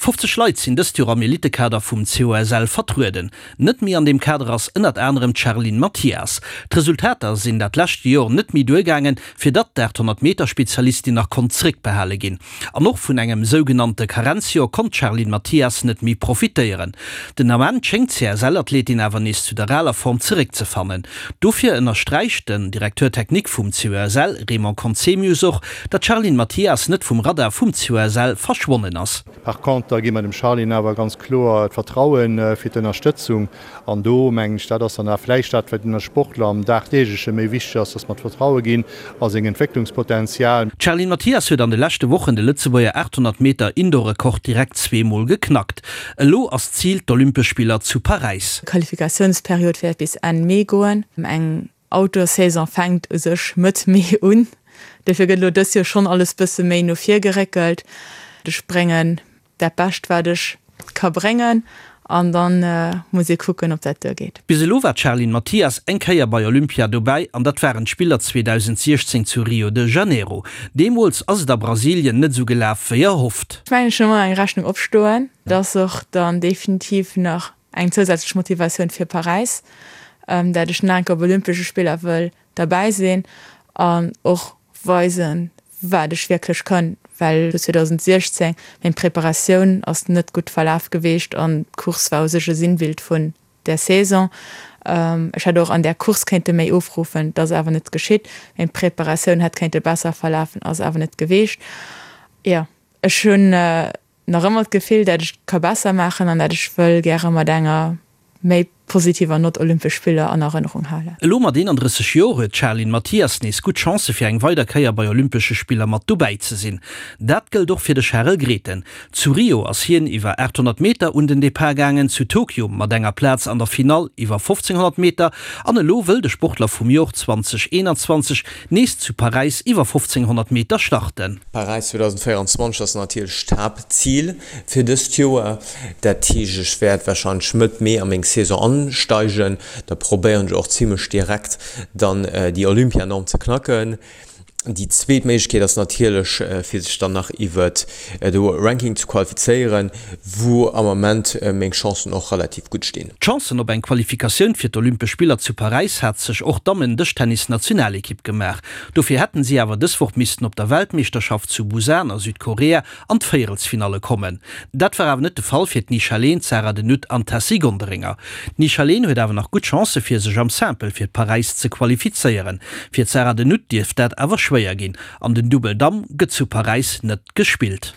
50 Leit sinn dëst Joer am Elitekader vum COSL vertrueden. Net méi an deem Kader ass ënnert anerem d'Charline Mathias. D'Resultater sinn dat lescht Jor net méi duergaangen, fir datt d'800 Meter Spezialistin nach konnt zeréckbehale ginn. An och vun engem sougenannte Karenzjor konnt d'Charline Mathias net méi profitéieren. Den Ament schéngt d'CSL-Athletin awer nees zu der aler Form zeréckzefannen. Dofir ënnersträicht den Directeur technique vum COSL, Raymond Conzemius och, datt d'Charline Mathias net vum Radar vum COSL verschwonnen ass. Par contre gi mer dem Charline awer ganz kloer d'Vertrauen fir d'Ënnerstëtzung. An do mengen ech, dat ass dann awer vläicht dat, wat den Sportler am Dagdeegleche méi wichteg ass, dass mer d'Vertraue ginn a seng Entwécklungspotenzial. D'Charline Mathias huet an de leschte Wochen de Lëtzebuerger 800 Meter Indoor-Rekord direkt zweemol geknackt. Elo ass d'Zil d'Olympesch Spiller zu Paräis. D'Qualifikatiounsperiod wäert bis Enn Mee goen. Eng Outdoor-Saison fänkt u sech Mëtt Mee un, dofir gëtt elo dës Joer schonn alles bësse méi no vir geréckelt. Ech bréngen dat Bescht wat ech ka bréngen an dann muss ee kucken ob dat duergeet. Bis elo war d'Charline Mathias eng Kéier bei Olympia dobäi an dat waren d'Spiller 2016 zu Rio de Janeiro. Deemools ass et a Brasilien net esou gelaf wéi erhofft. Ech mengen ech hunn ëmmer eng Rechnung opstoen, dat ass och dann definitiv nach eng zousätzlech Motivatioun fir Paräis, dat ech nach eng Kéier op Olympesche Spiller wëll derbäi sinn an och weisen, wat ech wierklech kann, well 2016 meng Preparatioun ass net gutt verlaf geweecht an d'Course war u sech e Sinnbild vun där Saison. Ech hätt och an där Course kéinte méi ofruffen, dat ass awer net geschitt. Meng Preparatioun hätt kéinte besser verlafen, ass awer net geweecht. Jo, ech hunn nach ëmmer d'Gefill, dat ech ka besser maachen an dat ech wëll gäre mat enger méi positiver Nott Olympesch Spiller an Erënnerung halen. Elo mat 31 Joer huet d'Charline Mathias nees gutt Chancë fir eng weider Kéier bei Olympesche Spiller mat dobäi ze sinn. Dat gëllt och fir de Charel Grethen. Zu Rio ass hien iwwer 800 Meter un den Depart gaangen, zu Tokio mat enger Plaz an der Finall iwwer 1500 Meter an elo wëll de Sportler vum Jor 2021 nees zu Paräis iwwer 1500 Meter starten. Paräis 2024 ass natierlech d'Haaptzil fir dëst Joer. Dat heescht, ech wäert warscheinlech Mëtt Mee a meng Saison ansteigen. Da probéieren ech och zimmlech direkt dann déi Olympianorm ze knacken. Déi zweet Méiglechkeet ass natierlech fir sech dann nach iwwert de Ranking ze qualifizéieren, wou am Ament meng Chancen och relativ gutt stinn. D'Chancen op eng Qualifikatioun fir d'Olympesch Spiller zu Paräis hat sech och d'Dammen-Dëschtennis-Nationalekipp gemaach. Dofir hätten si awer dës Woch missten op der Weltmeeschterschaft zu Busan a Südkorea an d'Véierelsfinalle kommen. Dat war awer net de Fall fir d'Nisha Leen, d'Sarah de Nutte an d'Tessy Gonderinger. D'Nisha Leen huet awer nach gutt Chancë fir sech am Simple fir Paräis ze qualifizéieren. Fir d'Sarah de Nutte dierft dat awer schwéier ginn an den Dubbel Damm gëtt zu Paräis net gespillt.